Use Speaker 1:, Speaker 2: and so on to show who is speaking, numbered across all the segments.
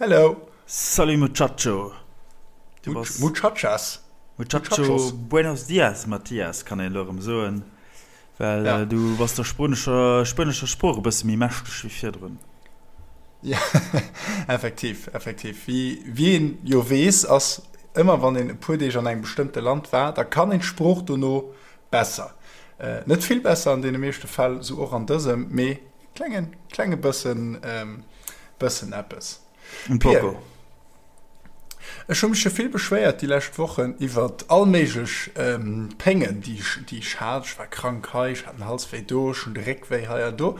Speaker 1: Hello!
Speaker 2: Salut Muchacho!
Speaker 1: Du bass. Muchachas!
Speaker 2: Muchacho, buenos dias Mathias, kann een elo erëm soen, well ja. du bass der spuenescher, spuenescher Sprooch e bësse méi mächteg wéi virdrun.
Speaker 1: Ja, effektiv, effektiv. Wéi, wéi een jo weess, ass ëmmer wann een e puer Deeg an engem bestëmmte Land war, da kann een d'Sprooch dono besser. Äh, net vill besser an deene meeschte Fäll, sou och an dësem, mee Klengen, klenge bëssen, bëssen eppes.
Speaker 2: Un poco.
Speaker 1: Ech hu mech jo vill beschwéiert déi lescht Wochen iwwert all méiglech Péngen, déi ech, déi ech hat. Ech war krank hei, ech hat den Halswéi do, ech hunn de Réckwéi hei an do.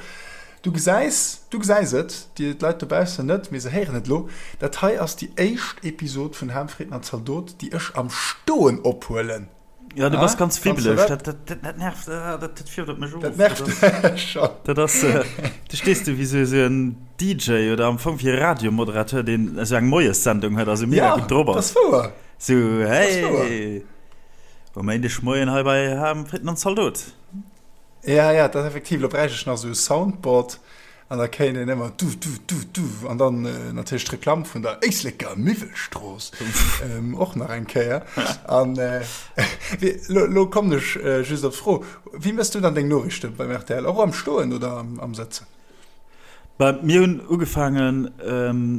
Speaker 1: Du gesäis, du gesäis et, déi d'Leit dobaussen net, mee se héieren et elo, dat hei ass déi éischt Episod vun Ham, Fritten an Zaldot, déi ech am Stoen ophuelen.
Speaker 2: Ja, du bass ganz wibbeleg. Dat, dat, dat, dat nervt, äh, dat, dat fiert op mech of.
Speaker 1: Dat nervt dech
Speaker 2: schon. Dat ass, äh, du stees du wéi sou, sou en DJ oder am Fong wéi e Radiomoderateur, deen esou eng Moiessendung huet a sou mega
Speaker 1: Ja,
Speaker 2: gutt drop
Speaker 1: dat
Speaker 2: ass.
Speaker 1: ass wouer.
Speaker 2: Sou,
Speaker 1: Dat ass wouer.
Speaker 2: hey, um Méindegmoien hei bei Ham, Fritten an Zaldot.
Speaker 1: Ja, ja, dat ass effektiv. Lo bräicht ech nach sou e Soundboard. An da kéint een ëmmer du, du, du, du an dann natierlech d'Reklamm vun der Éisleker Miwwelstrooss och nach eng Kéier. An lo, lo kommen ech just op d'Fro, Wéi méchs du dann deng Noriichte beim rtl? Och am Stoen oder am Sëtzen?
Speaker 2: Bah, mir hunn ugefaangen,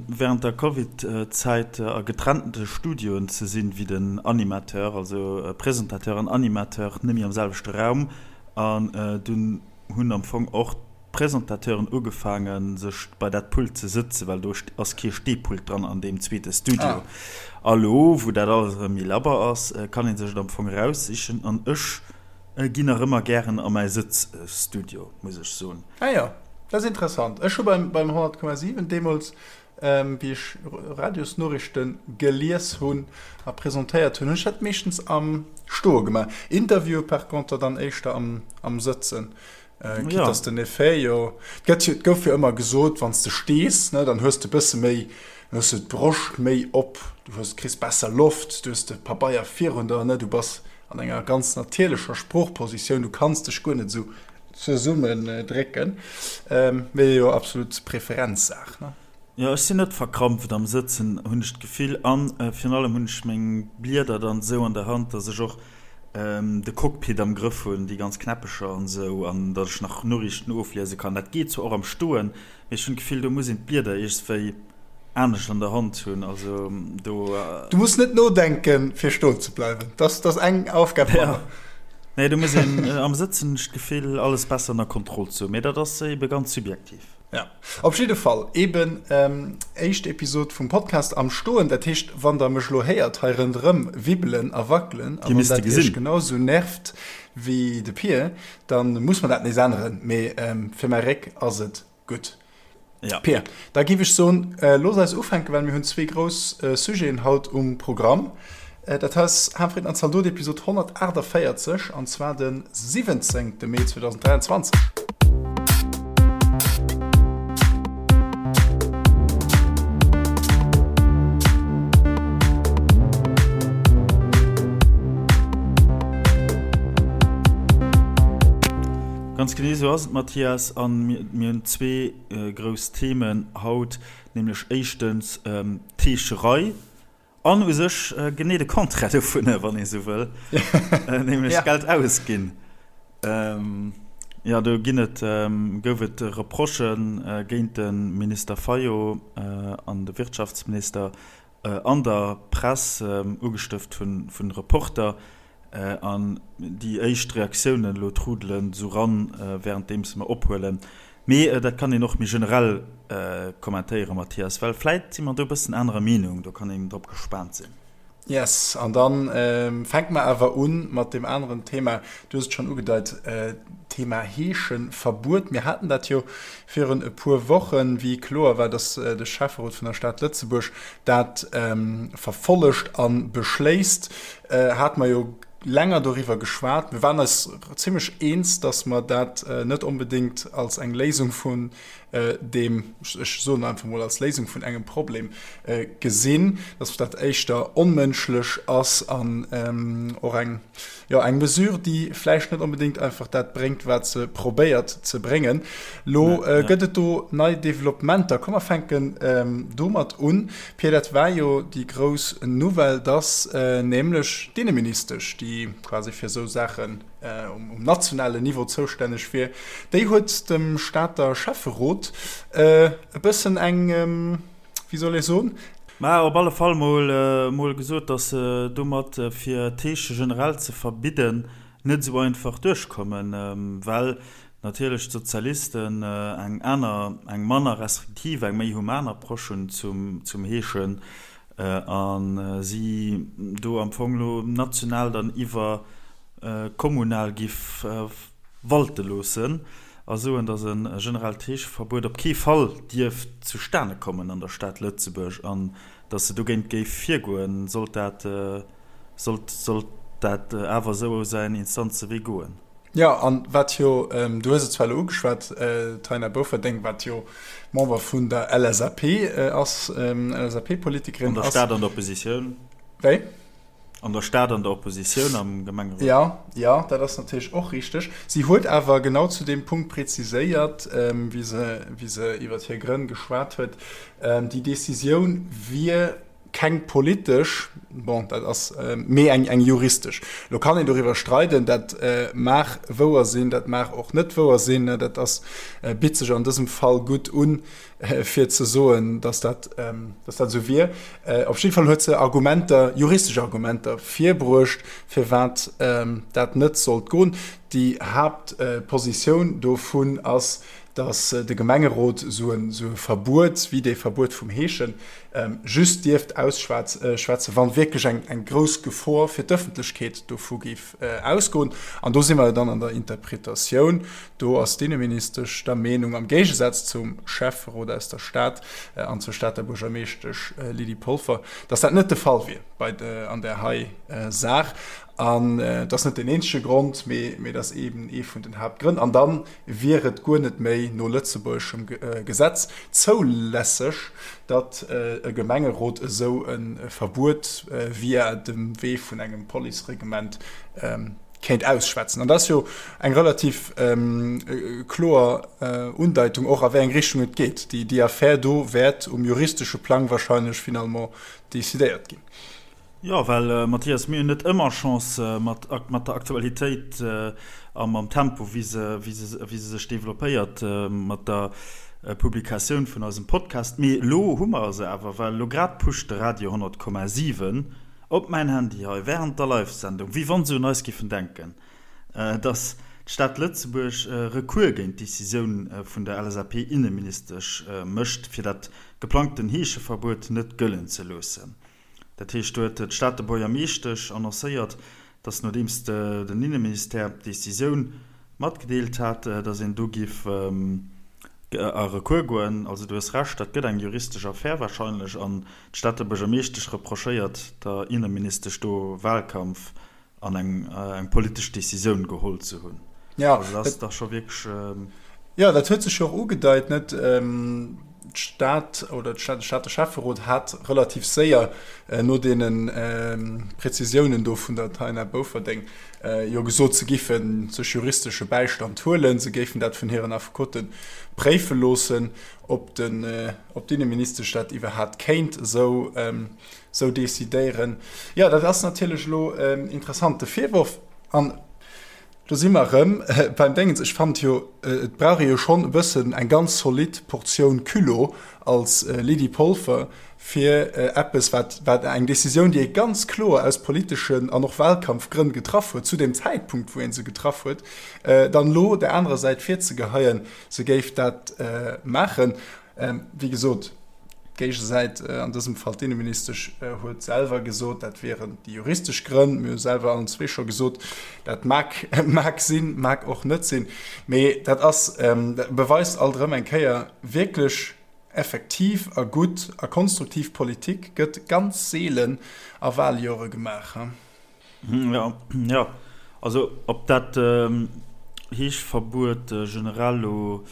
Speaker 2: wärend der Covid-Zäit a getrennte Studioen ze sinn, wéi den Animateur, also Presentateur an Animateur net méi am selwechte Raum. An dunn hunn am Fong och d'Presentateuren ugefaangen sech bei dat Pult ze sëtzen, well do ass kee Stehpult dran an deem zweete Studio. A lo wou dat alles erëm méi labber ass, kann ee sech et am Fong eraussichen an ech ginn nach ëmmer gären a mäi Sëtzstudio, muss ech soen.
Speaker 1: Ah jo, dat ass interessant. Ech hu beim 100,7 deemools, wéi ech Radiosnoriichte gelies hunn a presentéiert hunn, hunn ech dat meeschtens am Stoe gemaach. Interviewe par conter dann éischter am Sëtzen. Quitte ja. dass den Effet jo, et gëtt jo, et gouf jo ëmmer gesot, wann s de stees, ne, dann hues de bësse méi, dann hues de d'Broscht méi op, du hues, kriss besser Loft, du hues de Pabeier virun der, ne, du bass an enger ganz natierlecher Sproochpositioun, du kanns dech guer net esou zesummen drécken. Mee jo absolut Preferenzsaach, ne.
Speaker 2: Jo, ech sinn net verkrampft am Sëtzen, hunn ech d'Gefill, an virun allem hunn ech meng Blieder dann esou an der Hand, dass ech och de Cockpit am Grëff hunn, déi ganz Knäppecher an esou, an datt ech nach Noriichten ofliese kann. Dat geet zwar och am Stoen, mee ech hunn d'Gefill, do muss een d'Blieder iergswéi anescht an der Hand hunn. Also do.
Speaker 1: Du muss net nodenken, fir stoen ze bleiwen. Dat ass eng Aufgab
Speaker 2: manner. Nee, do muss een am Sëtzen, hunn ech d'Gefill, alles besser ënner Kontroll ze hunn. Mee dat ass ebe ganz subjektiv.
Speaker 1: Ja, op jidde Fall eben éischt Episod vum Podcast am Stoen. Dat heescht, wann der mech lo héiert hei rënderëm wibbelen a wackelen a wann dat iech genau sou nervt wéi de Pir, dann muss mer dat nees änneren. Mee fir mäi Réck ass et gutt.
Speaker 2: Ja.
Speaker 1: Pir, da giff ech soen, looss eis ufänken, well mir hunn zwee grouss Sujeten haut um Programm. Dat hei ass Hahnfritten an Zaldot, Episod 148, an zwar de 17. Mee 2023.
Speaker 2: Ganz genee esou ass et, Mathias. An mir hunn zwee grouss Themen haut, nämlech éischtens d'Heescherei An u sech genee de Contraire dovunner, wann ee sou wëll, nämlech Geld ausginn. Jo, do ginn et, gouf et Reprochë géint de Minister Fayot an de Wirtschaftsminister an der Press, ugestëft vun Reporter. An déi éischt Reaktiounen elo trudelen esou ran, wärenddeems mer ophuelen. Mee dat kann een och méi generell kommentéieren, Mathias, well vläit si mer do e bëssen anerer Meenung. Do kann een drop gespaant sinn.
Speaker 1: Yes, an da fänke mer awer u mat deem aneren Thema. Du hues et schonn ugedeit, Thema Heescheverbuet. Mir haten dat jo virun e puer Wochen, wéi kloer war, dass de Schäfferot vun der Stad Lëtzebuerg dat verfollegt a beschléisst, hate mer jo länger doriwwer geschwat. Mir waren eis zimlech eens, dass mer dat net onbedéngt als eng Léisung vun. Deem, ech soen einfach mol als Léisung vun engem Problem gesinn, dass dat éischter onmënschlech ass an och eng, jo, eng Mesure, déi vläicht net onbedéngt einfach dat bréngt, wat se probéiert ze bréngen. Lo gëtt et do nei Developpementer. Komm mer fänken domat un, Pia, dat war jo déi grouss Nouvelle, dass nämlech d'Inneministesch, déi quasi fir esou Saachen, um nationalen Niveau zoustänneg wier, déi huet dem Stater Schäfferot e bëssen eng, wéi soll ee soen?
Speaker 2: Mä op alle Fall mol mol gesot, datt se domat, fir d'Heesche generell ze verbidden, net esou einfach duerchkommen, well natierlech d'Sozialisten eng aner, eng manner restriktiv, eng méi human Approche hunn zum Heeschen a si do am Fong elo national dann iwwer kommunal giff walte loossen a soen, datt e generellt Heescheverbuet op kee Fall dierft zustane kommen an der Stad Lëtzebuerg an datt se dogéint géif virgoen, sollt dat sollt sollt dat awer esou säin Instanzewee goen.
Speaker 1: Jo, an wat jo, du hues et zwar elo ugeschwat, d'Taina Bouferdeng, wat jo Member vun der LSAP ass, LSAP-Politikerin
Speaker 2: ass. An der Stad an der Oppositioun.
Speaker 1: Wéi?
Speaker 2: An der Stad an der Oppositioun am Gemengerot.
Speaker 1: Jo, jo, dat ass natierlech och richteg. Si huet awer genau zu deem Punkt preziséiert, wéi se, wéi se iwwer hir Grënn geschwat huet, déi Decisioun wier keng politesch, bon, dat ass, mee eng, eng juristesch. Lo kann een doriwwer streiden, dat mag wouer sinn, dat mag och net wouer sinn, dat ass, bitt sech an dësem Fall gutt un, fir ze soen, dass dat, dass dat esou wier. Op jidde Fall huet se Argumenter, juristesch Argumenter virbruecht, firwat dat net sollt goen. Déi Haaptpositioun dovun ass, dass de Gemengerot esou e Verbuet, wéi dee Verbuet vum Heeschen, just dierft ausschwätzen, wa wierklech eng grouss Gefor fir d'Ëffentlechkeet dovu géif ausgoen. An do si mer jo dann an der Interpretatioun. Do ass d'Inneministesch der Meenung, am Géigesaz zum Schäfferot aus der Stad an zur Stater Buergermeeschtesch Lydie Polfer, dass dat net de Fall wier bei an där hei Saach. An dat ass net deen eenzege Grond, mee dat ass eeben ee vun den Haaptgrënn. An da wier et guer net méi no lëtzebuergeschem Gesetz zoulässeg, datt e Gemengerot esou e Verbuet via dem Wee vun engem Policereglement kéint ausschwätzen. An dat ass jo eng relativ kloer Undeitung och, a wéi eng Richtung et geet. Déi Affär do wäert um juristesche Plang wahrscheinlech finalement decidéiert ginn.
Speaker 2: Jo, well Mathias, mir hunn net ëmmer Chance mat mat der Aktualitéit a mam Tempo, wéi se wéi se wéi se sech developpéiert mat der Publikatioun vun eisem Podcast. Mee elo hu mer se awer, well elo grad pusht de Radio 100,7 op mäin Handy hei während der Live-Sendung, wéi wann se un eis giffen denken, dass d'Stad Lëtzebuerg Recours géint d'Decisioun vun der LSAP-Inneministesch mécht, fir dat geplangten Heescheverbuet net gëllen ze loossen. Dat heescht, do huet d'Stater Buergermeeschtesch annoncéiert, datt nodeems den Inneministère d'Decisioun matgedeelt hat, datt een do giff a Recours goen. Also du hues Recht, dat gëtt eng juristesch Affär warscheinlech an d'Stater Buergermeeschtesch reprochéiert der Inneministesch do Wahlkampf an eng eng politesch Decisioun geholl ze hunn.
Speaker 1: Ja, also dat ass dach scho wierklech. Jo, dat huet sech jo och ugedeit, net? D'Stad oder de Stater Schäfferot hat relativ séier no deene Prezisiounen do vun der Taina Bouferdeng jo gesot, se géife sech juristesche Bäistand huelen, se géifen dat vun hiren Affekote préife loossen, ob den, ob d'Inneministesch dat iwwerhaapt kéint esou Sou decidéieren. Jo, dat ass natierlech elo en interessante Virworf. An do si mer erëm beim Déngens. Ech fand jo, et brauch ee jo schonn e bëssen eng ganz zolidd Portioun Culot als Lydie Polfer, fir eppes, wat, wat eng Decisioun, déi ee ganz kloer aus politeschen an och Wahlkampfgrënn getraff huet, zu deem Zäitpunkt, wou ee se getraff huet, dann elo där anerer Säit virzegeheien, se géif dat maachen. Wéi gesot, d'Géigesäit, an dësem Fall d'Inneministesch, huet selwer gesot, dat wieren déi juristesch Grënn. Mir hu selwer allen zwee scho gesot, dat mag, mag sinn, mag och net sinn. Mee dat ass, dat beweist alt erëm eng Kéier, wierklech effektiv a gutt a konstruktiv Politik gëtt ganz seelen a Waljore gemaach.
Speaker 2: Jo, jo. Also ob dat Heeschverbuet generell elo.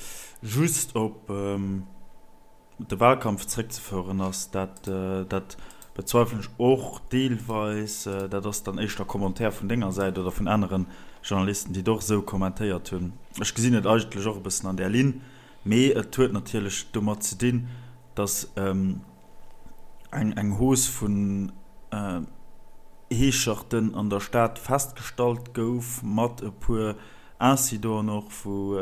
Speaker 2: just op de Wahlkampf zréckzefoueren ass, dat, dat bezweifelen ech och deelweis. Dat ass dann éischter Commentaire vun denger Säit oder vun anere Journalisten, déi et och esou kommentéiert hunn. Ech gesinn et eigentlech och e bëssen an där Linn, mee et huet natierlech domat ze dinn, datt eng eng Hausse vun Heescherten an der Stad festgestallt gouf, mat e puer Incidenten och, wou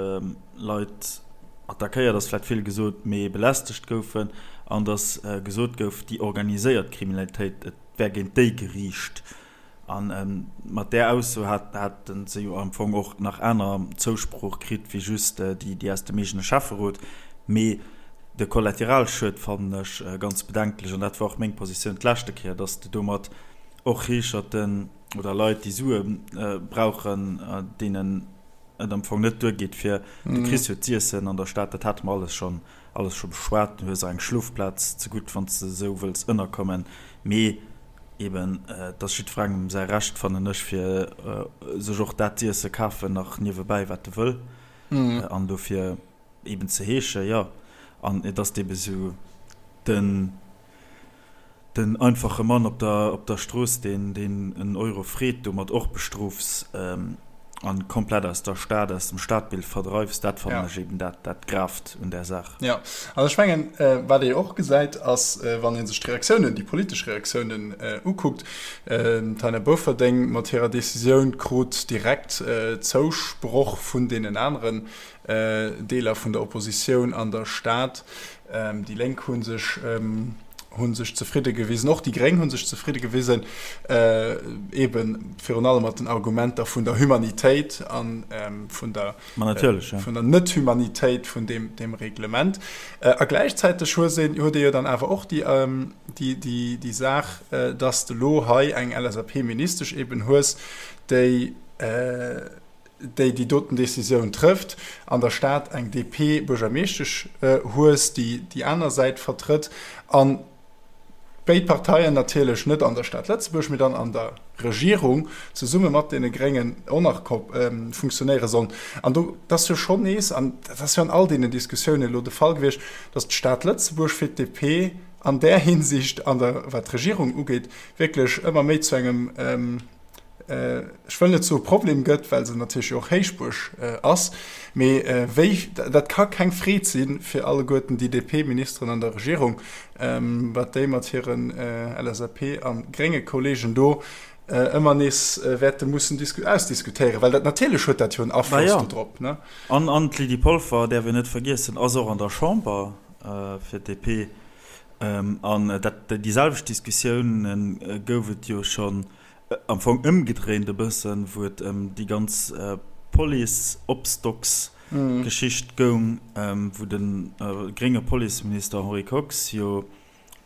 Speaker 2: Leit attackéiert ass vläicht vill gesot, mee belästegt goufen, an datt gesot gouf, déi organiséiert Kriminalitéit, et wär géint déi geriicht. A mat där Ausso hate se jo am Fong och nach aner Zousprooch kritt wéi just déi aus dem eegene Schäfferot. Mee de Kollateralschued fannen ech ganz bedenklech, an dat war och meng Positioun d'leschte Kéier, datt de domat och Heescherten oder Leit, déi Sue brauchen, deenen et am Fong net duergeet, fir de Chris huet z'iessen an der Stad, dat hate mer alles schonn alles scho beschwat. Du hues och eng Schlofplaz zegutt, wann s de esou wëlls ënnerkommen. Mee eben, et ass jiddwerengem säi Recht, fannen ech, fir sech och dat z'iesse kafen nach niewebäi, wat e wëll. An dofir eben ze heeschen, jo. An et ass eben esou den. Den einfache Mann op der op der Strooss, deen deen en Euro freet, domat och bestrofs an komplett aus der Stad, aus dem Stadbild verdreifs, dat fannen ech eben dat dat Gravt un där Saach.
Speaker 1: Jo, an ech mengen, wat ee och gesäit, ass, wann ee sech d'Reaktiounen, déi politesch Reaktiounen ukuckt, d'Taina Bofferding mat hirer Decisioun krut direkt Zousproch vun deenen aneren Deeler vun der Oppositioun an der Stad. Déi Lénk hu sech hu sech zefridde gewisen, och déi Gréng hu sech zefridde gewisen, eebe virun allem mat den Argumenter vun der Humanitéit a vun der vun der Net-Humanitéit vun deem deem Reglement. A gläichzäiteg hues een huet ee jo dann awer och déi déi déi déi Saach, dass de lo hei eng LSAP-Ministesch eeben hues, déi déi déi doten Décisioun trëfft, an der Stad eng DP-Buergermeeschtesch hues, déi déi aner Säit vertrëtt, a béid Parteien natierlech net an der Stad Lëtzebuerg, mee dann an der Regierung zesumme mat deene Gréngen och nach funktionéiere sollen. An do, dat ass jo schonn nees, an dat ass jo an all deenen Diskussiounen elo de Fall gewiescht, datt d'Stad Lëtzebuerg fir d'DP an där Hinsicht, an der, wat d'Regierung ugeet, wierklech ëmmer méi zu engem, ech wëll net soe Problem gëtt, well se natierlech jo och Héichbuerg ass, mee wéi, dat ka keng Freed si fir alleguerten déi DP-Ministeren an der Regierung, wat déi mat hiren LSAP a grénge Kollegen do ëmmer nees wäerte mussen ausdiskutéieren, well dat natierlech huet dat jo en Afloss do drop.
Speaker 2: An d'Lydie Polfer, däerf een net vergiessen, ass och an der Chamber fir d'DP. An dat, déi selwecht Diskussioune gouf et jo schonn Am Fong ëmgedréint e bëssen, wou et ëm déi ganz Police-Obstocks-Geschicht goung, wou de grénge Policeminister Henri Kox jo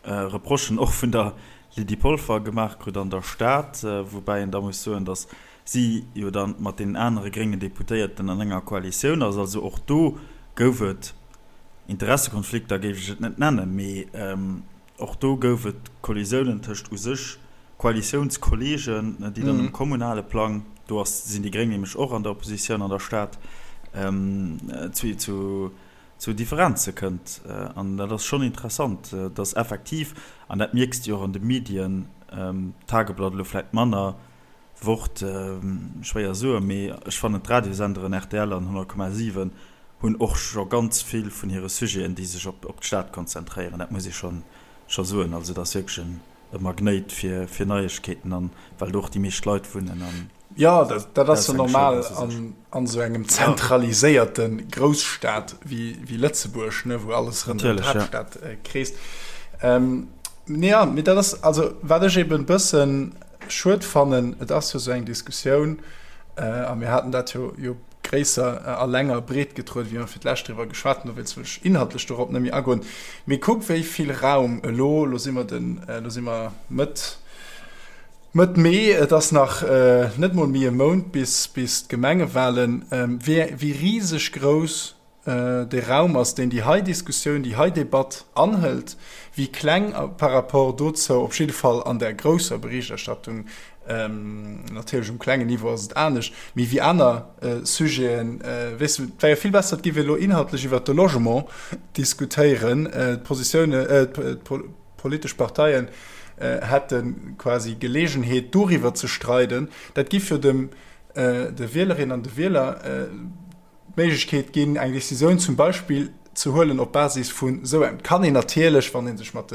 Speaker 2: Reprochen och vun der Lydie Polfer gemaach krut an der Stad, woubäi een da muss soen, datt si jo da mat deenen anere gréngen Deputéierten an enger Koalitioun ass. Also och do gouf et Interessekonflikter, géif ech et net nennen, mee Och do gouf et Kollisiounen tëscht u sech Koalitiounskolleegen, déi dann um kommunale Plang, do ass, sinn déi Gréng nämlech och an der Oppositioun an der Stad, zu zu Differenze kënnt. An dat ass schonn interessant, dass effektiv, an dat mierks de jo och an de Medien, Tageblatt elo vläicht manner, Wort, schwéier soen, mee ech fannen d'Radiosenderen rtl an 100,7 hunn och scho ganz vill vun hire Sujeten, déi sech op d'Stad konzentréieren. Dat muss ee scho soen. Also et ass wierklech e Magnéit fir Neiegkeeten an well do och déi meescht Leit wunnen. An
Speaker 1: Jo, dat ass jo normal an esou engem zentraliséierte Grousstad wéi Lëtzebuerg, wou alles rënderëm d'Haaptstad kreest. Jo, mee dat ass, also wat ech eben e bëssen Schued fannen, et ass jo esou eng Diskussioun, a mir haten dat jo jo gréisser a länger breetgetrueden, wéi mer fir d'lescht driwwer geschwat hunn, dowéinst wëll ech inhaltlech dorop net méi agoen, mee kuck wéi vill Raum elo, elo si mer den, elo si mer Mëtt, Mëtt Mee, et ass nach net mol méi e Mount bis, bis d'Gemengewahlen, wéi, wéi riseg grouss. de Raum ass, deen déi hei Diskussioun, déi hei Debatt anhëlt, wéi kleng par rapport dozou, op jidde Fall an der grousser Berichterstattung, natierlech um klengen Niveau ass et anescht, mee wéi aner Sujeten, weess de, et wär jo vill besser, et géif ee elo inhaltlech iwwert de Logement diskutéieren, d'Positiounen, d'politesch Parteien hätte quasi Geleegenheet doriwwer ze streiden, dat giff jo dem de Wielerinnen an de Wieler d'Méiglechkeet ginn, eng Decisioun zum Beispill ze huelen op Basis vun esou engem. Et kann een natierlech, wann ee sech mat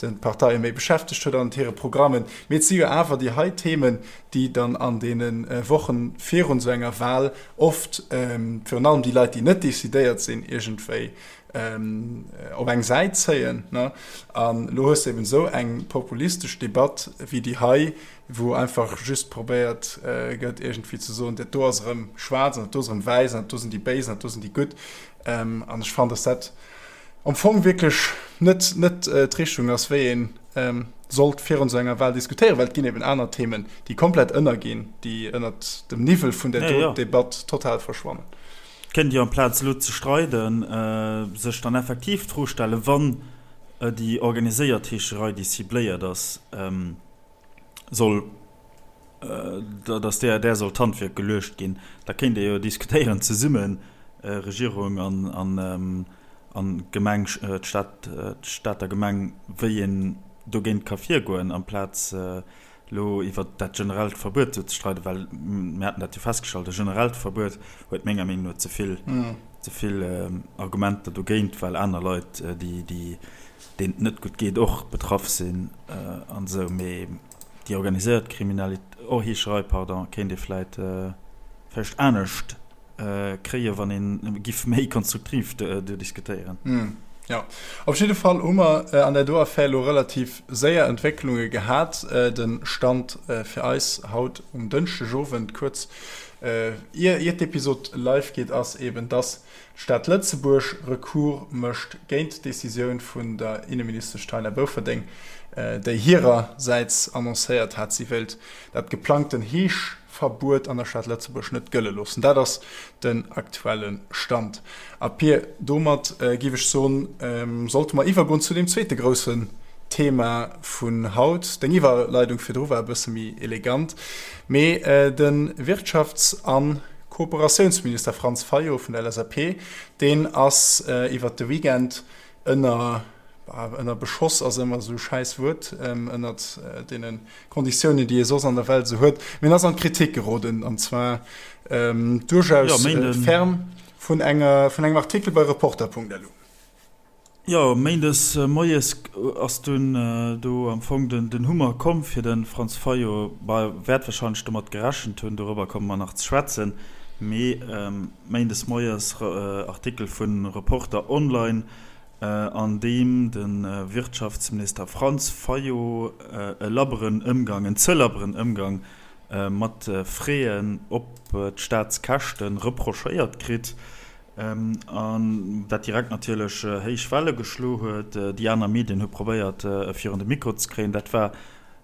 Speaker 1: de Parteie méi beschäftegt huet an hire Programmen, mee et si jo awer déi hei Themen, déi dann an deene Wochen virun esou enger Wahl oft, virun allem déi Leit, déi net decidéiert sinn, iergendwéi op eng Säit zéien. An elo hues de eben esou eng populistesch Debatt wéi déi hei, wou einfach just probéiert gëtt iergendwéi ze soen, dat do ass erëm schwaarz an dat do ass erëm wäiss an dat do sinn déi Béis an dat do sinn déi Gutt. An ech fannen, datt dat am Fong wierklech net, net d'Richtung ass, wéi ee sollt virun esou enger Wahl diskutéieren, well et ginn eben aner Themen, déi komplett ënnerginn, déi ënnert dem Niwwel vun där do Debatt total verschwannen.
Speaker 2: Kéint jo amplaz elo ze streiden, sech dann effektiv d'Fro stellen, wann déi organiséiert Heescherei, déi cibléiert ass, soll, datt där där soll d'Handwierk geluecht ginn, da kéint ee jo diskutéieren zesummen, Regierung an an Gemeng, d'Stad, d'Stater Gemeng, wéi een dogéint ka virgoen, amplaz elo iwwert dat generellt Verbuet do ze streiden, well mir haten dat jo festgestallt, e generellt Verbuet huet menger Meenung no ze vill, ze vill Argumenter dogéint, well aner Leit, déi, déi deenen et net gutt geet, och betraff sinn an esou. Mee déi organiséiert Kriminalitéit, oh Heescherei, pardon, kéint ee vläit vläicht anescht kréien, wann ee giff méi konstruktiv do diskutéieren.
Speaker 1: Jo, op jidde Fall hu mer an där do Affär elo relativ séier Entwécklunge gehat. De Stand fir eis haut um Dënschdegowend, kuerz ier d'Episod live geet, ass eben, dass D'Stad Lëtzebuerg Recours mécht géint d'Decisioun vun der Inneministesch Taina Bouferdeng, déi hirersäits annoncéiert hat, si wéilt dat geplangten Heeschverbuet an der Stad Lëtzebuerg net gëlle loossen. Dat ass den aktuelle Stand. A Pir, domat géif ech soen, sollte mer iwwergoen zu deem zweete groussen Thema vun haut. Deng Iwwerleidung virdru war e bësse méi elegant, mee de Wirtschafts a. Kooperatiounsminister Franz Fayot vun der LSAP, deen ass iwwert de Weekend ënner, ënner Beschoss ass ëmmer esou e schäiss Wuert, ënnert deene Konditiounen, déi ee soss an der Welt esou huet, mee en ass an d'Kritik geroden, an zwar duerchaus ferm vun enger, vun engem Artikel bei Reporter.lu.
Speaker 2: Jo, méindes moies ass dunn do am Fong den Hummer komm fir de Franz Fayot. Bah, wäert warscheinlech domat gerechent hunn, dorobber komme mer nach ze schwätzen. Mee méindes moies Artikel vu Reporter Online, an deem de Wirtschaftsminister Franz Fayot e labberen Ëmgang, en ze labberen Ëmgang mat Fräen op d'Staatskäschte reprochéiert kritt. An dat direkt natierlech héich Welle geschlo huet. Déi aner Medien hu probéiert, e virun de Mikro ze kréien. Dat war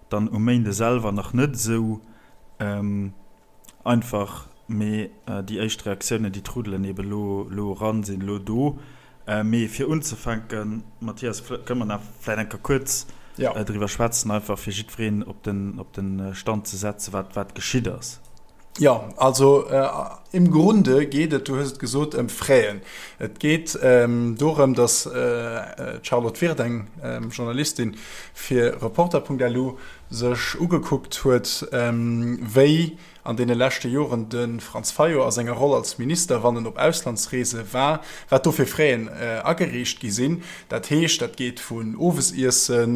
Speaker 2: dann um Méinde selwer nach net esou einfach, mee déi éischt Reaktiounen, déi trudelen eebe lo eran, sinn elo do. Mee fir unzefänken, Mathias, kënne mer nach vläicht eng Kéier kuerz driwwer schwätzen, einfach fir jiddwereen op de Stand ze setzen, wat geschitt ass.
Speaker 1: Jo, also im Grunde geet et, du hues et gesot, ëm Fräen. Et geet dorëm, datt d'Charlotte Wirth, eng Journalistin fir Reporter.lu, sech ugekuckt huet, wéi an deene leschte Joren de Franz Fayot a senger Roll als Minister, wann en op Auslandsreese war, wat do fir Fräen agereecht gi sinn. Dat heescht, dat geet vun Owesiesse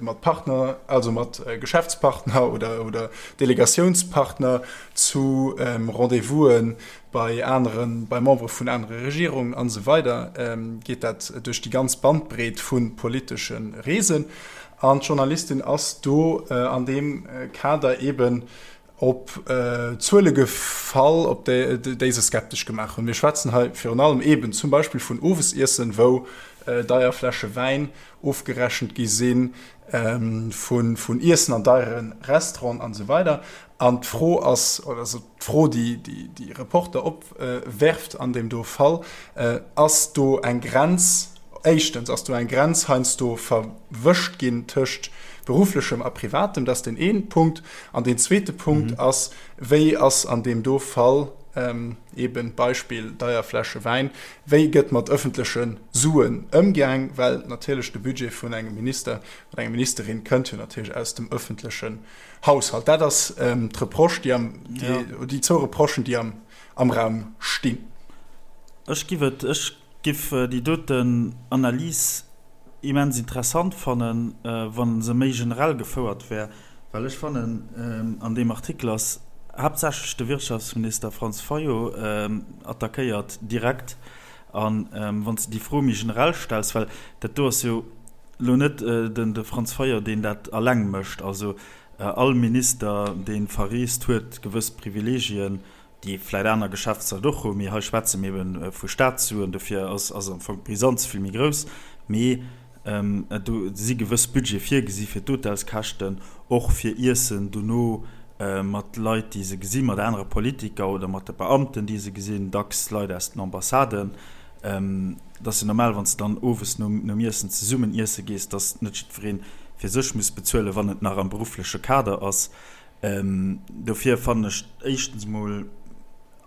Speaker 1: mat Partner, also mat Geschäftspartner oder Delegatiounspartner, zu Rendez-vouse bei aneren, bei Membere vun anere Regierungen an esou weider, geet dat duerch déi ganz Bandbreet vu politesche Reesen. An d'Journalistin ass do an deem Kader eeben op Zuele gefall, op déi se skeptesch gemaach hunn. Mir schwätzen hei virun allem eeben zum Beispill vun Owesiessen, wou. deier Fläsche Wäin ofgerechent gi si vun Iessen an deiere Restauranten an esou weider. An d'Fro ass, oder also d'Fro, déi déi Reporter opwerft an deem do Fall, Ass do eng Grenz, éischtens, ass do eng Grenz heiansdo verwëscht ginn tëscht berufflechem a privatem? Dat ass deen een Punkt. An deen zweete Punkt ass, Wéi ass an deem do Fall, eben Beispill deier Fläsche Wäin, wéi gëtt mat ëffentleche Suen ëmgaang? Well natierlech de Budget vun engem Minister oder enger Ministerin kënnt jo natierlech aus dem ëffentlechen Haushalt. Dat ass d'Reproche, déi am, déi zwou Reprochen, déi am, am Raum stinn.
Speaker 2: Ech giff et, ech giff déi doten Analys immens interessant fannen, wa se méi generell gefouert wär, well ech fannen, an deem Artikel ass haaptsächlech de Wirtschaftsminister Franz Fayot attackéiert direkt. A wann s de déi Fro méi generell stells, well dat do ass jo elo net de Franz Fayot, deen dat alleng mécht, also all Minister, dee verreest, huet gewëss Privilegien, déi vläit aner Geschäftsleit och hunn, mee hei schwätze mir ebe vu Staatssuen, dofir ass am Fong d'Brisanz vill méi grouss. Mee do si gewëss Budgete virgesi fir d'Hotelskäschten, och fir Iessen dono mat Leit, déi se gesinn, mat anere Politiker oder mat de Beamten, déi se gesinn, dacks Leit aus den Ambassaden. Et ass jo normal, wann s de dann owes nom Iessen zesummen iesse gees, dass net jiddweree fir sech muss bezuelen, wann et nach am beruffleche Kader ass. Dofir fannen ech éischtens emol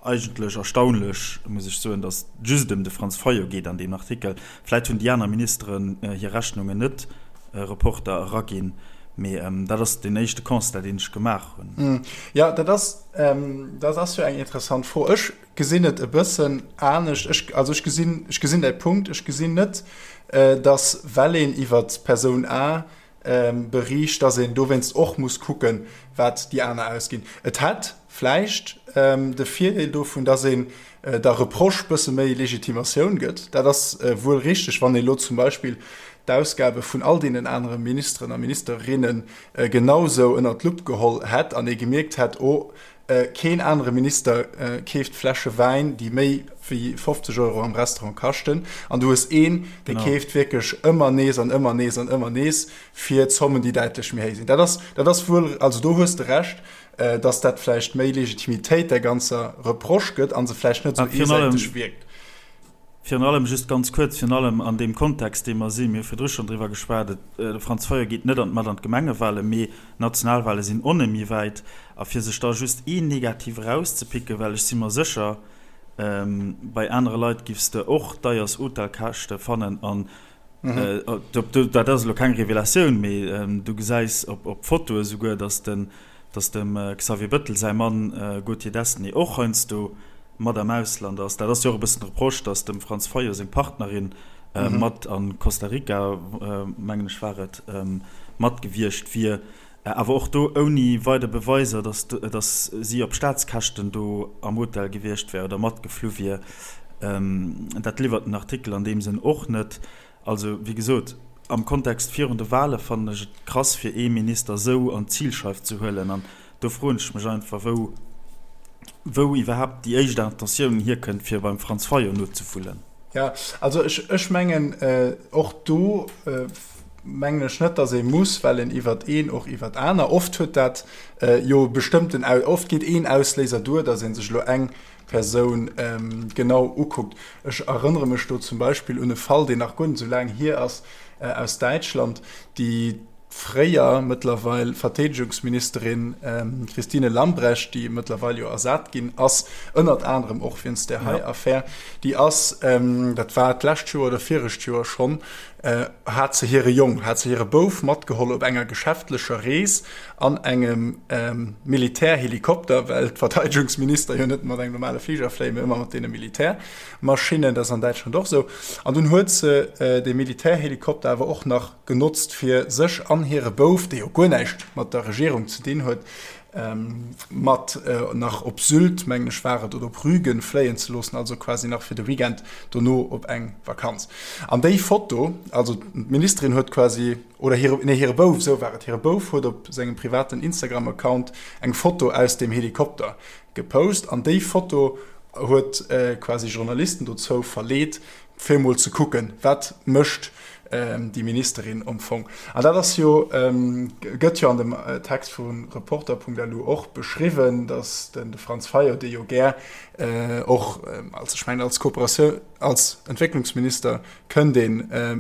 Speaker 2: eigentlech erstaunlech, muss ech soen, datt et just ëm de Franz Fayot geet an deem Artikel. Vläit hunn déi aner Ministeren hir Rechnungen net Reporter eraginn, mee dat ass deen éischte Constat, deen ech gemaach hunn.
Speaker 1: Jo, dat ass, dat ass jo eng interessant Fro. Ech gesinn et e bëssen anescht. Ech, also ech gesinn, ech gesinn däi Punkt. Ech gesinn net, datt well een iwwer d'Persoun A beriicht, dass een dowéinst och muss kucken, wat déi aner ausginn. Et hätt vläicht de Virdeel dovun, dass een der Reproche bësse méi Legitimatioun gëtt. Dat ass wuel richteg, wann ee lo zum Beispill d'Ausgabe vun all deenen anere Ministeren a Ministerinne genausou ënnert d'Lupp geholl hätt an ee gemierkt hätt, oh, Keen anere Minister keeft Fläsche Wäin, déi méi wéi 50 Euro am Restaurant kaschten. An du hues een, dee keeft wierklech ëmmer nees an ëmmer nees an ëmmer nees fir Zommen, déi däitlech méi héich sinn. Dat ass, dat ass wuel, also do hues de Recht, datt dat vläicht méi Legitimitéit där ganzer Reproche gëtt a se vläicht net esou eesäiteg wierkt.
Speaker 2: Virun allem, just ganz kuerz, virun allem an deem Kontext, dee mer sinn, mir hu virdru schonn driwwer geschwat, et, de Franz Fayot geet net an, mat an d'Gemengewahlen, mee d'Nationalwahle sinn och net méi wäit. A fir sech da just een Negativ erauszepicken, well ech si mer sécher, bei anere Leit giffs de och deiers Hotelkäschte fannen an dat ass elo keng Revelatioun, mee du gesäis op Fotoe souguer, datt den, dass dem Xavier Bëttel säi Mann Gauthier Destenay och heiansdo mat am Ausland ass. Dat ass jo och e bëssen d'Reproche, dass dem Franz Fayot seng Partnerin mat a Costa Rica, mengen ech war et, mat gewiescht wier. Awer och do ouni weider Beweiser, dass dass si op Staatskäschten do am Hotel gewiescht wär oder matgeflu wier. Dat liwwert den Artikel an deem Sënn och net. Also, wéi gesot, am Kontext virun de Wale fannen ech et krass, fir ee Minister esou an d'Zilscheif ze huelen. An do froen ech mech einfach, wou, wou iwwerhaapt déi éischt Intentioun hierkënnt, fir beim Franz Fayot nozewullen.
Speaker 1: Jo, also ech, ech mengen, och do mengen ech net, datt ee muss, well een iwwert een och iwwert aner, oft huet dat jo bestëmmten, oft geet een Ausléiser duer, datt ee sech elo eng Persoun genau ukuckt. Ech erënnere mech do zum Beispill un e Fall, deen nach guer net esou laang hier ass, aus Däitschland, déi fréier, mëttlerweil Verteedegungsministerin Christine Lambrecht, déi mëttlerweil jo ersat ginn ass, ënnert anerem och wéinst där hei Affär, déi ass, dat war d'lescht Joer oder virecht Joer schonn, hat se hire Jong, hat se hire Bouf matgeholl op enger geschäftlecher Rees an engem Militärhelikopter, well d'Verteidegungsminister jo net mat engem normale Fliger fléien, mee ëmmer mat deene Militärmaschinnen, dat ass an Däitschland och esou. An dunn huet se dee Militärhelikopter awer och nach genotzt, fir sech an hire Bouf, dee jo guer näischt mat der Regierung ze dinn huet, mat nach op Sylt, mengen ech war et, oder op Rügen fléien ze loossen, also quasi nach fir de Weekend dono op eng Vakanz. An déi Foto, also d'Ministerin huet quasi, oder hire, nee hire Bouf, esou war et, hire Bouf huet op sengem privaten Instagram-Account eng Foto aus deem Helikopter gepost an déi Foto huet quasi Journalisten dozou verleet. Fir emol ze kucken, wat mécht déi Ministerin am Fong. An dat ass jo, gëtt jo an dem Text vu Reporter.lu och beschriwwen, datt de Franz Fayot, dee jo gär och als, ech mengen als Kooperatioun, als Entwécklungsminister kënnt ee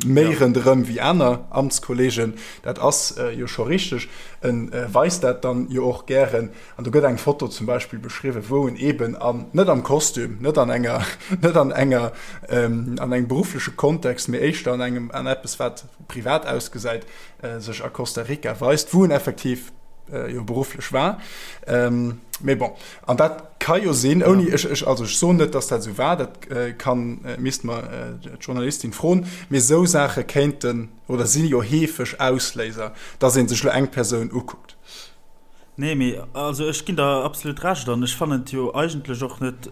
Speaker 1: méi ronderëm wéi aner Amtskollegen, dat ass jo scho richteg, e weist dat dann jo och gären. An do gëtt eng Foto zum Beispill beschriwwen, wou en eeben an, net am Kostüm, net an enger, net an enger, an engem beruffleche Kontext, mee éischter an engem, an eppes wat privat ausgesäit, sech a Costa Rica weist, wou en effektiv jo berufflech war. Mee bon, an dat ka jo sinn, ouni, ech, ech, also ech soen net, datt dat esou war, dat kann, misst mer d'Journalistin froen, mee esou Saache kéinten oder si jo heefeg Ausléiser, datt ee sech elo eng Persoun ukuckt.
Speaker 2: Nee, mee also ech ginn der absolut Recht an ech fannen et jo eigentlech och net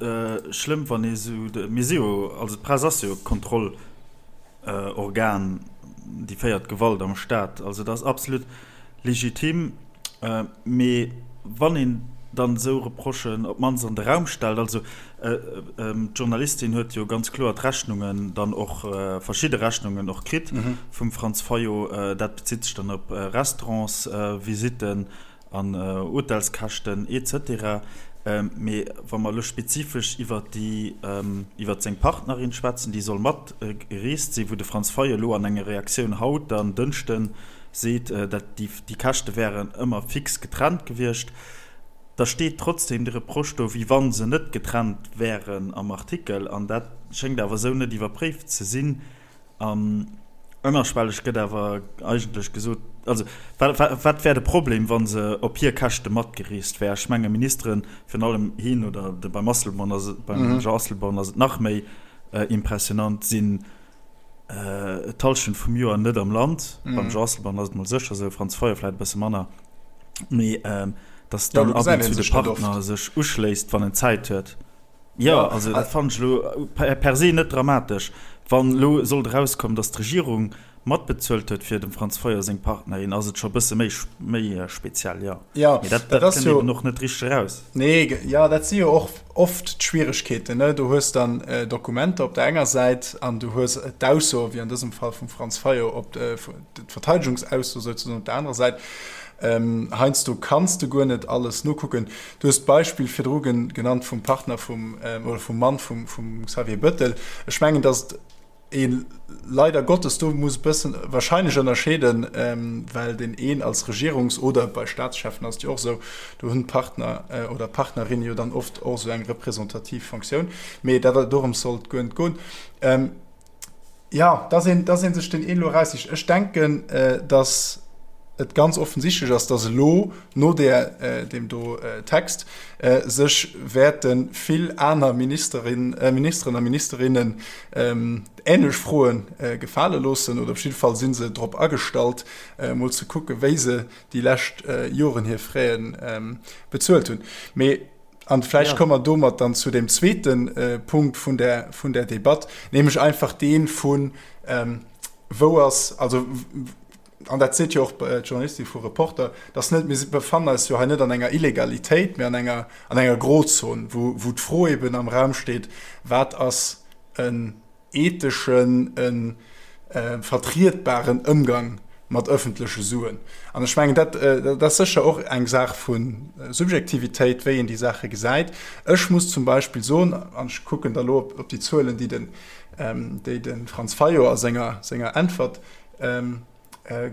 Speaker 2: schlëmm, wann ee sou, mir si jo, also d'Press ass jo Kontrollorgan, déi féiert Gewalt am Staat, also dat ass absolut legitim. Mee wann een dann esou Reprochen op d'mannst an de Raum stellt, also d'Journalistin huet jo ganz kloer d'Rechnungen dann och, verschidde Rechnungen och kritt vum Franz Fayot. Dat bezitt sech dann op Restaurantsvisitten an Hotelskäschten et cetera. Mee wa mer elo spezifesch iwwer déi, iwwer seng Partnerin schwätzen, déi soll mat gereest sinn, wou de Franz Fayot elo an enger Reaktioun haut dann, Dënschden, seet, dat déi Käschte wären ëmmer fix getrennt gewiescht. Da steet trotzdem de Reproche do, wéi wa se net getrennt wären am Artikel, an dat schéngt awer esou net iwwerpréift ze sinn. An ënnerschwelleg gëtt awer eigentlech gesot, also wat wär de Problem, wa se op hir Käschte matgereest wär? Ech menge Ministeren, virun allem hien oder de beim Asselborn ass et, beim Jean Asselborn ass et nach méi impressionant, sinn d'Hallschent vum Joer net am Land. Beim Jean Asselborn ass et mol sécher esou, Franz Fayot vläicht e bësse manner. Mee datt dann ab und zu de Partner sech uschléisst, wann en Zäit huet. Jo, also dat fannen ech elo per se net dramatesch. Wann elo sollt erauskommen, datt d'Regierung matbezuelt huet fir dem Franz Fayot seng Partnerin, ass et scho e bësse méi méi speziell, jo.
Speaker 1: Jo, Mee dat
Speaker 2: dat kënnt eben och net richteg eraus.
Speaker 1: Nee, jo, dat si jo och oft d'Schwieregkeeten, ne? Du hues dann Dokumenter op der enger Säit an du hues d'Ausso, wéi an dësem Fall vum Franz Fayot, op d'Verteidegungsausso souzesoen op der anerer Säit. Heiansdo kanns de guer net alles nokucken. Du hues d'Beispill virdru genannt vum Partner vum, oder vum Mann vum Xavier Bettel. Ech mengen, datt ee leider Gottes do muss e bëssen wahrscheinlech ënnerscheeden, well deen een als Regierungs oder bei Staatscheffen ass et jo och esou, do hunn d'Partner oder d'Partnerinne jo dann oft och esou eng representativ Fonctioun. Mee dat, dorëms soll et guer net goen. Ja, dass een, dass ee sech deen een elo eraussicht. Ech denken, dass et ganz offensichtlech ass, dass elo no där, deem do Text sech wäerte vill aner Ministerin, Ministeren a Ministerinnen änlech Froe gefale loossen, oder op jidde Fall si se drop agestallt, emol ze kucken, wéi se déi lescht Joren hir Fräe bezuelt hunn. Mee An vläicht komme mer domat dann zu dem zweete Punkt vun der, vun der Debatt, nämlech einfach dee vun, wou ass, also, an dat seet jo och d'Journalistin vu Reporter, dass net, mir befannen eis jo hei net an enger Illegalitéit, mä an enger, an enger Grozon, wou, wou d'Fro eben am Raum steet, wat ass en etheschen, e vertrietbaren Ëmgang mat ëffentleche Suen. An ech mengen, dat, dat ass sécher och eng Saach vu Subjektivitéit, wéi een déi Saache gesäit. Ech muss zum Beispill soen, an ech kucken da elo op déi Zuelen, déi den, déi de Franz Fayot a senger, senger Äntwert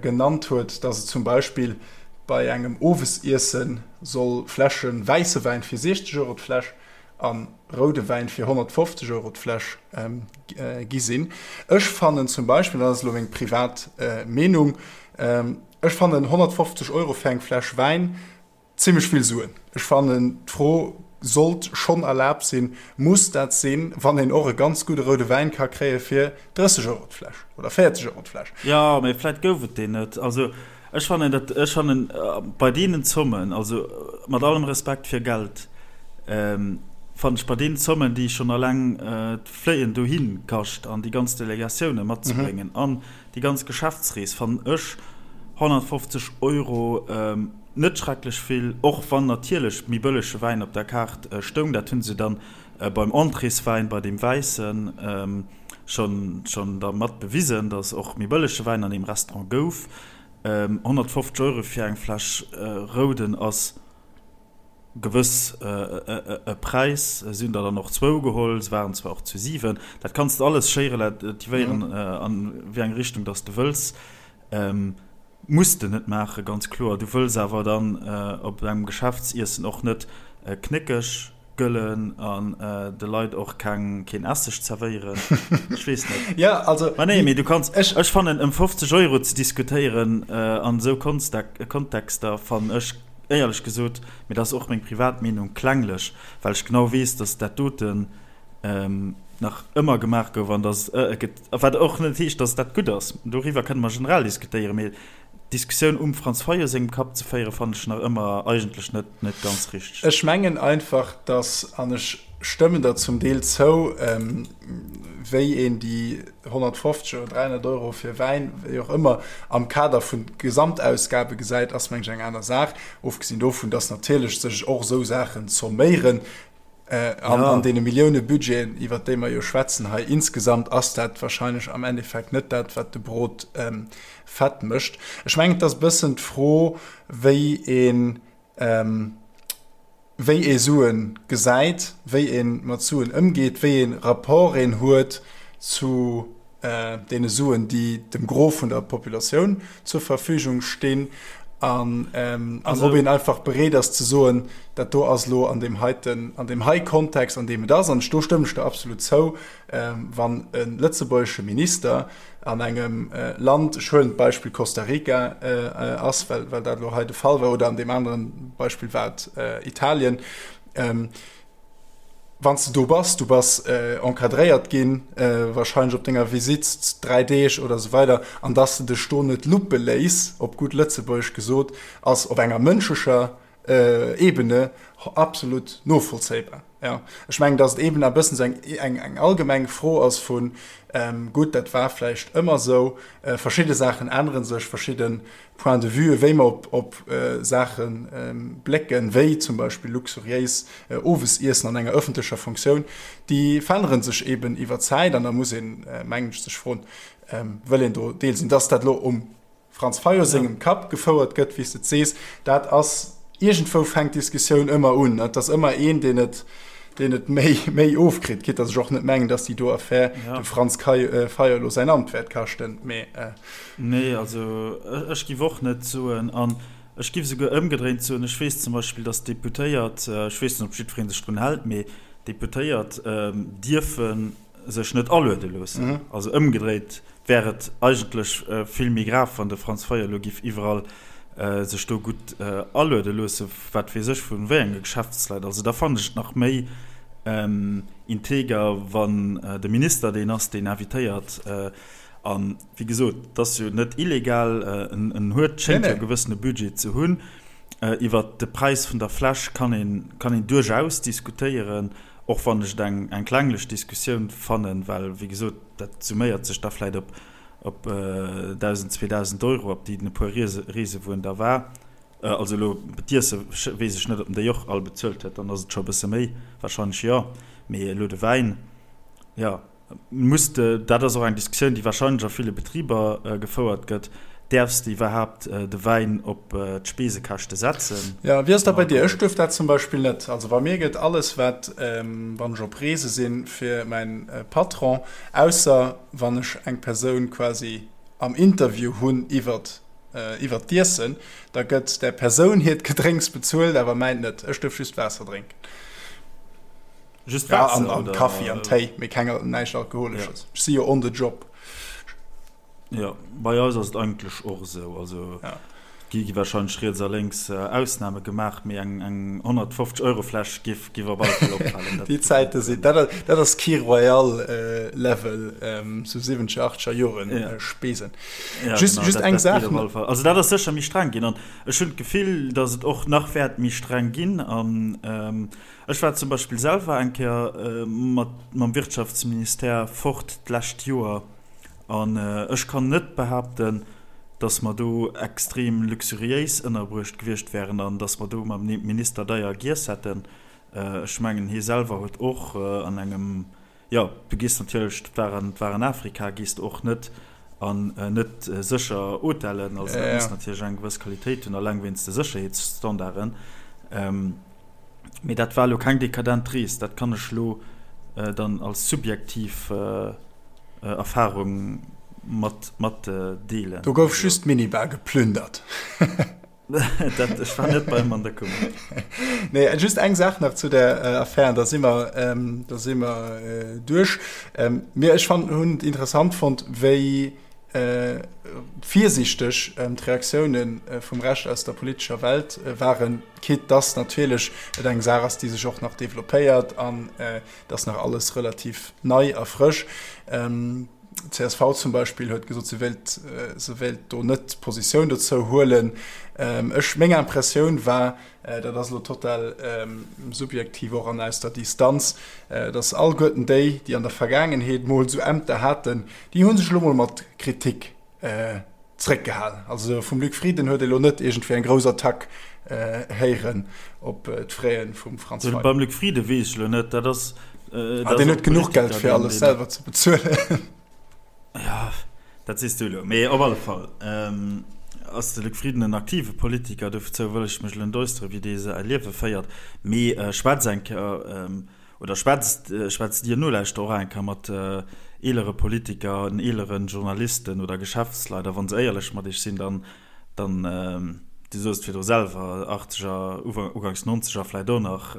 Speaker 1: genannt huet, dass et zum Beispill bei engem Owesiesse soll Fläsche wäisse Wäin fir 60 Euro d'Fläsch a roude Wäin fir 150 Euro d'Fläsch gi sinn. Ech fannen zum Beispill, dat ass elo meng privat Meenung, ech fannen 150 Euro fir eng Fläsch Wäin zimmlech vill Suen. Ech fannen d'Fro sollt schonn erlaabt sinn, muss dat sinn, wann een och e ganz gudde roude Wäin ka kréie fir 30 Euro d'Fläsch oder 40 Euro d'Fläsch.
Speaker 2: Jo, mee vläit gouf et deen net. Also Ech fannen dat, ech fannen bei deenen Zommen, also mat allem Respekt fir Geld, fannen ech bei deenen Zommen, déi schonn alleng d'Fléien dohi kascht an déi ganz Delegatioune matzebréngen an déi ganz Geschäftsrees, fannen ech 150 Euro net schrecklech vill, och wann natierlech méi bëllege Wäin op der Kaart stoung. Dat hu se dann beim Entréeswäin, bei deem wäissen. schonn schonn dermat bewisen, datt och méi bëllege Wäin an deem Restaurant gouf. 150 Euro fir eng Fläsch Rouden ass gewëss e Präis. Si hunn der dann och zwou geholl, se waren zwar och zu 7. Dat kanns de alles schéi relativéieren an wéi eng Richtung dass de wëlls. Muss de net maachen, ganz kloer. Du wëlls awer dann op engem Geschäftsiessen och net knéckeg gëllen an de Leit och keng, keen Esseg zerwéieren. Ech weess net.
Speaker 1: Jo, also.
Speaker 2: Ma nee, mee du kanns, ech fannen, ëm 50 Euro ze diskutéieren an esou Kontexter fannen ech éierlech gesot, mee dat ass och meng privat Meenung, klenglech, well ech genau weess, dass dat doten nach ëmmer gemaach gouf an dass et gëtt, wat och net heescht, dass dat gutt ass, doriwwer kënne mer generell diskutéieren, mee d'Diskussioun um Franz Fayot sengem Kapp ze féieren, fannen ech nach ëmmer eigentlech net, net ganz richteg.
Speaker 1: Ech mengen einfach, dass, an ech stëmmen der zum Deel zou, wéi een déi 150 oder 300 Euro fir Wäin, wéi och ëmmer, am Kader vun Gesamtausgabe gesäit, ass mengen ech eng aner Saach, ofgesinn dovun, dass natierlech sech och esou Saachen zomméieren. An an deene Milliounebudgeten, iwwert déi mer jo schwätzen hei insgesamt, ass dat wahrscheinlech am Endeffekt net dat, wat de Brot fett mécht. Ech mengen, et ass e bëssen d'Fro, wéi een, wéi ee Sue gesäit, wéi ee mat Suen ëmgeet, wéi ee Rapport een huet zu deene Suen, déi dem Gros vun der Populatioun zur Verfügung stinn, an ob een einfach bereet ass ze soen, dat do ass elo an deem heiten, an deem hei Kontext, an deem et ass, an do stëmmen ech der absolut zou, wann e lëtzebuergesche Minister an engem Land, ech huelen d'Beispill Costa Rica ass, well dat elo hei de Fall war, oder an deem aneren Beispill war et Italien, Wann s de do bass, du bass encadréiert ginn, wahrscheinlech op denger Visitt, 3 Deeg oder esou weider, an dass de dech do net luppe léiss, op gutt Lëtzebuergesch gesot, ass op enger mënschlecher Ebene absolut novollzéibar. Jo, ech mengen, dass et eeben e bëssen esou eng, eng allgemeng Fro ass vu, gutt, dat war vläicht ëmmer esou, verschidde Saachen ännere sech, verschidde Point de vue, wéi mer op Saache blécken, wéi zum Beispill luxuriéis Owesiessen an enger ëffentlecher Funktioun, déi verännere sech eeben iwwer d'Zäit. An da muss een, mengen ech, sech froen, Wëll een do Deel sinn? Dass dat elo um Franz Fayot sengem Kapp gefouert gëtt, wéi s de et sees, dat ass, iergendwou fänkt d'Diskussioun ëmmer un. Et ass ëmmer een, deen et deen et méi, méi ofkritt, quitte dass ech och net mengen, dass déi do Affär dem Franz Fayot elo säin Amt wäert kaschten, mee.
Speaker 2: Nee, also ech giff och net soen, an ech giff esouguer ëmgedréint soen, ech weess zum Beispill, dass d'Deputéiert, ech weess net, ob jiddweree sech drun hält, mee d'Deputéiert dierfe sech net aluede loossen. Also ëmgedréit wär et eigentlech vill méi grav, wann de Franz Fayot elo giff iwwerall sech do gutt aluede loosse, wat weess ech vu wéi enge Geschäftsleit. Also da fannen ech et nach méi integer, wann de Minister deen ass, deen invitéiert. A wéi gesot, et ass jo net illegal, en huet, schéngt jo e gewëssene Budget ze hunn. Iwwert de Präis vun der Fläsch kann een, kann een duerchaus diskutéieren, och wann ech et eng, eng klenglech Diskussioun fannen, well, wéi gesot, dat summéiert sech da vläit op, op 1.000, 2.000 Euro, op déi den e puer Riese, Reese wou en da war. Also elo d'Iesse weess ech net, ob en déi och all bezuelt huet, dann ass et scho e bësse méi, warscheinlech jo, mee elo de Wäin, jo. Muss de, dat ass och eng Diskussioun, déi wahrscheinlech a ville Betriber gefouert gëtt, däerfs de iwwerhaapt de Wäin op d'Speesekäschte setzen?
Speaker 1: Jo, wéi ass dat bei dir? Ech duerf dat zum Beispill net. Also bei mir gëtt alles, wat, wann ech op Reese sinn, fir mäin Patron, ausser wann ech eng Persoun quasi am Interview hunn iwwert iwwert d'Iessen, da gëtt där Persoun hiert Gedrénks bezuelt, awer mäint net. Ech duerf just Waasser drénken.
Speaker 2: Just Waasser,
Speaker 1: ja, an, an Kaffi an Téi, mee keng, näischt Alkoholesches. Ja. Ech si jo on the job.
Speaker 2: Ja, bei eis ass et eigentlech och esou. Also ja. gi gi wahrscheinlech riets a lénks äh, Ausname gemaach, mee eng, eng 150 Euro Fläsch giff giff op alle Fall opfalen.
Speaker 1: Déi Zäite sinn, dat, dat ass Kir Royal äh, Level ähm, zu 70er, 80er Joren ja. äh, Spesen.
Speaker 2: Ja, just, genau, just dat, eng Saach. Also dat ass sécher méi streng ginn an ech hunn d'Gefill, datt et och nach wäert méi streng ginn an ähm, Ech war zum Beispill selwer eng Kéier mat mam Wirtschaftsministère fort d'lescht Joer an ech kann net behaapten, dass mer do extrem luxuriéis ënnerbruecht gewiescht wären an dass mer do mam Minister deier giess hätten. Ech mengen, hie selwer huet och an engem. Jo, du gees natierlech, dat war an, war an Afrika, gees de och net an net sécher Hotellen, also dat muss natierlech eng gewëss Qualitéit hunn, alleng wéinst de Sécherheetsstandarden. Mee dat war elo keng dekadent Rees, dat kann ech elo dann als subjektiv Erfarung mat matdeelen.
Speaker 1: Do gouf just d'Minibar geplündert.
Speaker 2: Dat, ech war net beim an der Kummer.
Speaker 1: Nee, just eng Saach nach zu der äh, Affär, da si mer, ähm, da si mer äh, duerch. Ähm, mir, ech fand, hunn et interessant fonnt, wéi äh, virsichteg ähm, d'Reaktiounen äh, vum Rescht aus der politescher Welt äh, waren, quitte dass natierlech et eng Saach ass, déi sech och nach developpéiert an äh, dass nach alles relativ nei a frësch. Ähm, D'CSV zum Beispill huet gesot, se wéilt, se wéilt do net Positioun dozou huelen. Ech, meng Impressioun war, dat ass elo total subjektiv och an aus der Distanz, datt alleguerten déi, déi an der Vergaangenheet mol esou Ämter haten, déi hu sech elo mol mat Kritik zréckgehalen. Also vum Luc Frieden huet ee lo net iergendwéi eng grouss Attack héieren op d'Fraie vum Franz Fayot.
Speaker 2: Beim Luc Frieden weess ech elo net, dat ass.
Speaker 1: Ah, deen huet genuch Geld fir alles selwer ze bezuelen.
Speaker 2: Jo, dat sees du elo. Mee op alle Fall ass de Luc Frieden en aktive Politiker, dozou wëll ech mech elo net äusseren, wéi dee säi Liewe féiert. Mee schwätz eng Kéier Oder schwätzt, schwätzt Dir Nolauschterer och eng Kéier mat eelere Politiker an eeleren Journalisten oder Geschäftsleit, a wa se éierlech mat Iech sinn, dann, dann, Dir sot et virdru selwer, Achtzeger, Uganks Nonzeger vläicht och nach,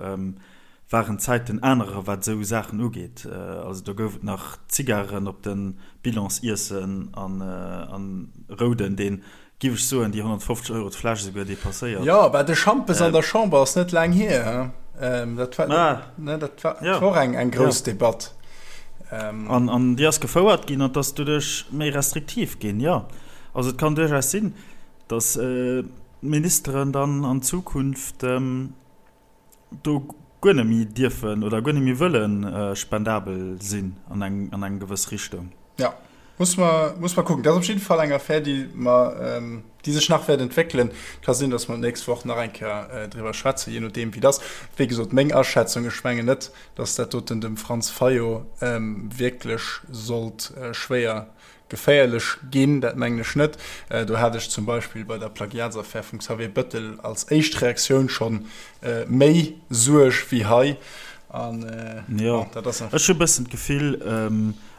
Speaker 2: waren d'Zäiten anerer wat esou Saachen ugeet. Also do gouf et nach Zigaren op de Bilansiessen an, an Rouden, deen Giff ech soen, déi 150 Euro d'Fläsch esouguer depasséiert.
Speaker 1: Jo, bah de Schampes an der Chamber ass net laang hier, he? Dat war, ne, dat war, dat war och eng, eng grouss Debatt.
Speaker 2: An, an déi ass gefouert ginn an 't ass doduerch méi restriktiv ginn, jo. Also et kann duerchaus sinn, datt d'Ministeren dann an Zukunft do guer net méi dierfen oder guer net méi wëlle spendabel sinn an eng, an eng gewëss Richtung.
Speaker 1: Ja, muss mer, muss mer kucken. Dat ass op jidde Fall eng Affär, déi mer, déi sech nach wäert entwéckelen. Ka sinn, datt mer d'nächst Woch nach eng Kéier driwwer schwätzen, jee nodeem wéi et ass. Wéi gesot, meng Aschätzung, ech mengen net, datt dat doten dem Franz Fayot wierklech sollt schwéier Geféierlech ginn, dat mengen ech net. Do hat ech zum Beispill bei der Plagiatsaffär vum Xavier Bëttel als éischt Reaktioun scho méi Suerg wéi hei. An
Speaker 2: bon, dat ass. Ech hu e bëssen d'Gefill,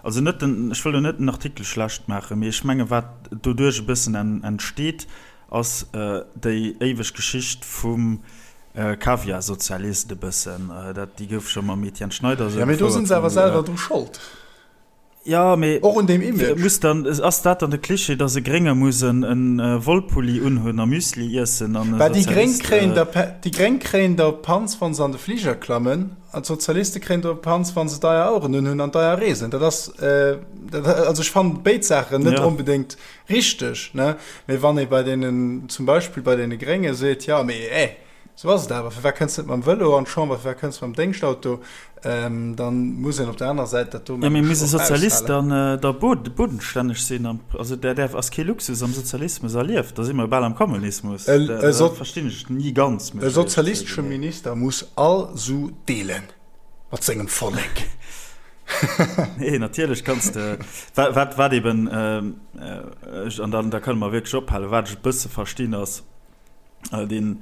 Speaker 2: also net den, ech wëll elo net den Artikel schlecht maachen, mee ech menge wat doduerch e bëssen entsteet, ass déi éiweg Geschicht vum Kaviarsozialist e bëssen. Dat, déi gouf scho mam Etienne Schneider esou
Speaker 1: gefouert. Jo, mee do si se awer selwer dru Schold.
Speaker 2: Ja, mee
Speaker 1: Och un deem Image.
Speaker 2: Muss dann, ass dat dann de Klischee, dass e Grénge muss en Wollpulli unhunn a Müsli iessen an e
Speaker 1: Bah, déi Gréng Sozialist. kréien der, déi Gréng kréien der Panz, wa se an de Fliger klammen, an d'Sozialiste kréien der Panz, wa se deier Aueren unhunn an deier reesen. Dat ass, dat, also ech fannen béid Saachen net onbedéngt richteg, ne? Mee wann ee bei deenen, zum Beispill bei deene Grénge seet, jo, mee eh, Sou ass et awer. Firwat kënns de net mam Vëlo an d'Chamber, firwat kënns de mam Déngschtauto? Dann muss een op der anerer Säit dat do,
Speaker 2: mengen ech, och aushalen. Jo, mee muss e Sozialist dann da bodenstänneg sinn? Also dat däerf, ass kee Luxus am Sozialismus erlieft. Da si mer jo bal am Kommunismus. Dat verstinn ech ni ganz,
Speaker 1: muss ech éierlech zouginn. E sozialistesche Minister muss all Su deelen mat sengem Vollek.
Speaker 2: Nee, natierlech kanns de, wat, wat eben, an dann, da kënne mer wierklech ophalen, wat ech e bësse verstinn ass, Dee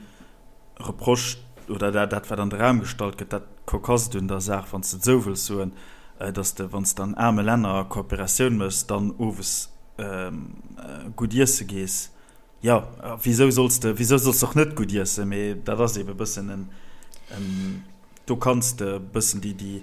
Speaker 2: Reproche oder dat, dat wat an de Raum gestallt gëtt, dat Cocasst un der Saach, wann s de et esou wëlls soen, datt s de, wann s de an aarme Länner Kooperatioun méchs, dann owes gutt iesse gees. Jo, wisou solls de, wisou solls de och net gutt iessen? Mee dat ass eebe e bëssen en, Do kanns de e bëssen déi, déi,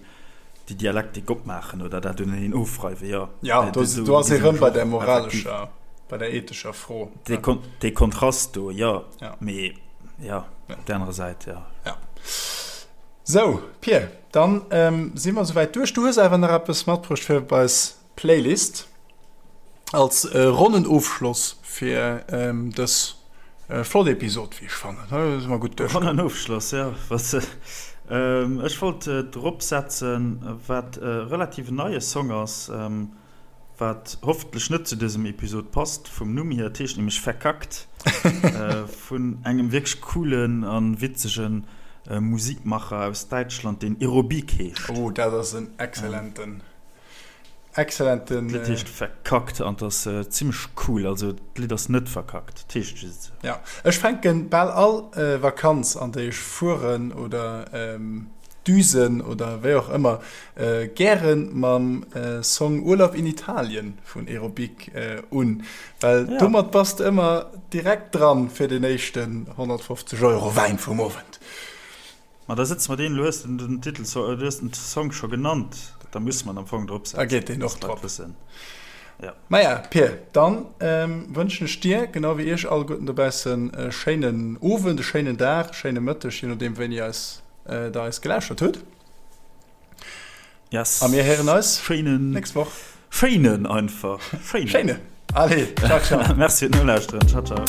Speaker 2: déi Dialektik opmaachen oder dat uneneen ofreiwen, jo.
Speaker 1: Ja, do, do ass ee rëm bei der moralescher, bei der ethescher Fro.
Speaker 2: Dee, dee Kontrast do, jo. Ja. Mee, ja, op där anerer Säit, jo.
Speaker 1: Ja. Sou, Pir, dann si mer souwäit duerch. Du hues awer nach eppes matbruecht fir op eis Playlist als ronnen Ofschloss fir dës flott Episod, wéi ech fannen. Hei si mer gutt
Speaker 2: duerchkomm. Ronnen Ofschloss, jo. Ech wollt drop setzen, wat e relativ neie Song ass, wat hoffentlech net zu dësem Episod passt vum Numm hier. Et heescht nämlech Verkackt vun engem wierklech coolen a witzege. Musikmacher aus Däitschland, deen Erobique heescht.
Speaker 1: Oh, dat ass en excellenten, excellenten.
Speaker 2: D'Lidd heescht Verkackt an 't ass zimmlech cool. Also d'Lidd ass net verkackt, 't heescht just esou.
Speaker 1: Ja, ech fänken bal all Vakanz an déi ech fueren oder düsen oder wéi och ëmmer gären mam Song Urlaub in Italien vun Erobique un, well domat bass de ëmmer direkt dran fir den éischten 150 Euro Wäin vum Owend.
Speaker 2: Ma da sëtze mer deen, elo hues de den Titel, du hues den Song scho genannt, da musse mer en am Fong drop
Speaker 1: setzen. Da geet deen och drop. Ja. Maja, Pir, dann wënschen ech dir, genau wéi iech alleguerten dobaussen, e schéinen Owend, e schéinen Dag, e schéine Mëtteg, je nodeem wéini eis der eis gelauschtert hutt.
Speaker 2: Yes.
Speaker 1: A mir héieren eis
Speaker 2: schéinen,
Speaker 1: nächst Woch.
Speaker 2: Schéinen einfach.
Speaker 1: Schéinen. Schéinen. Allez, ciao, ciao.
Speaker 2: Merci fir d'Nolauschteren. Ciao, ciao.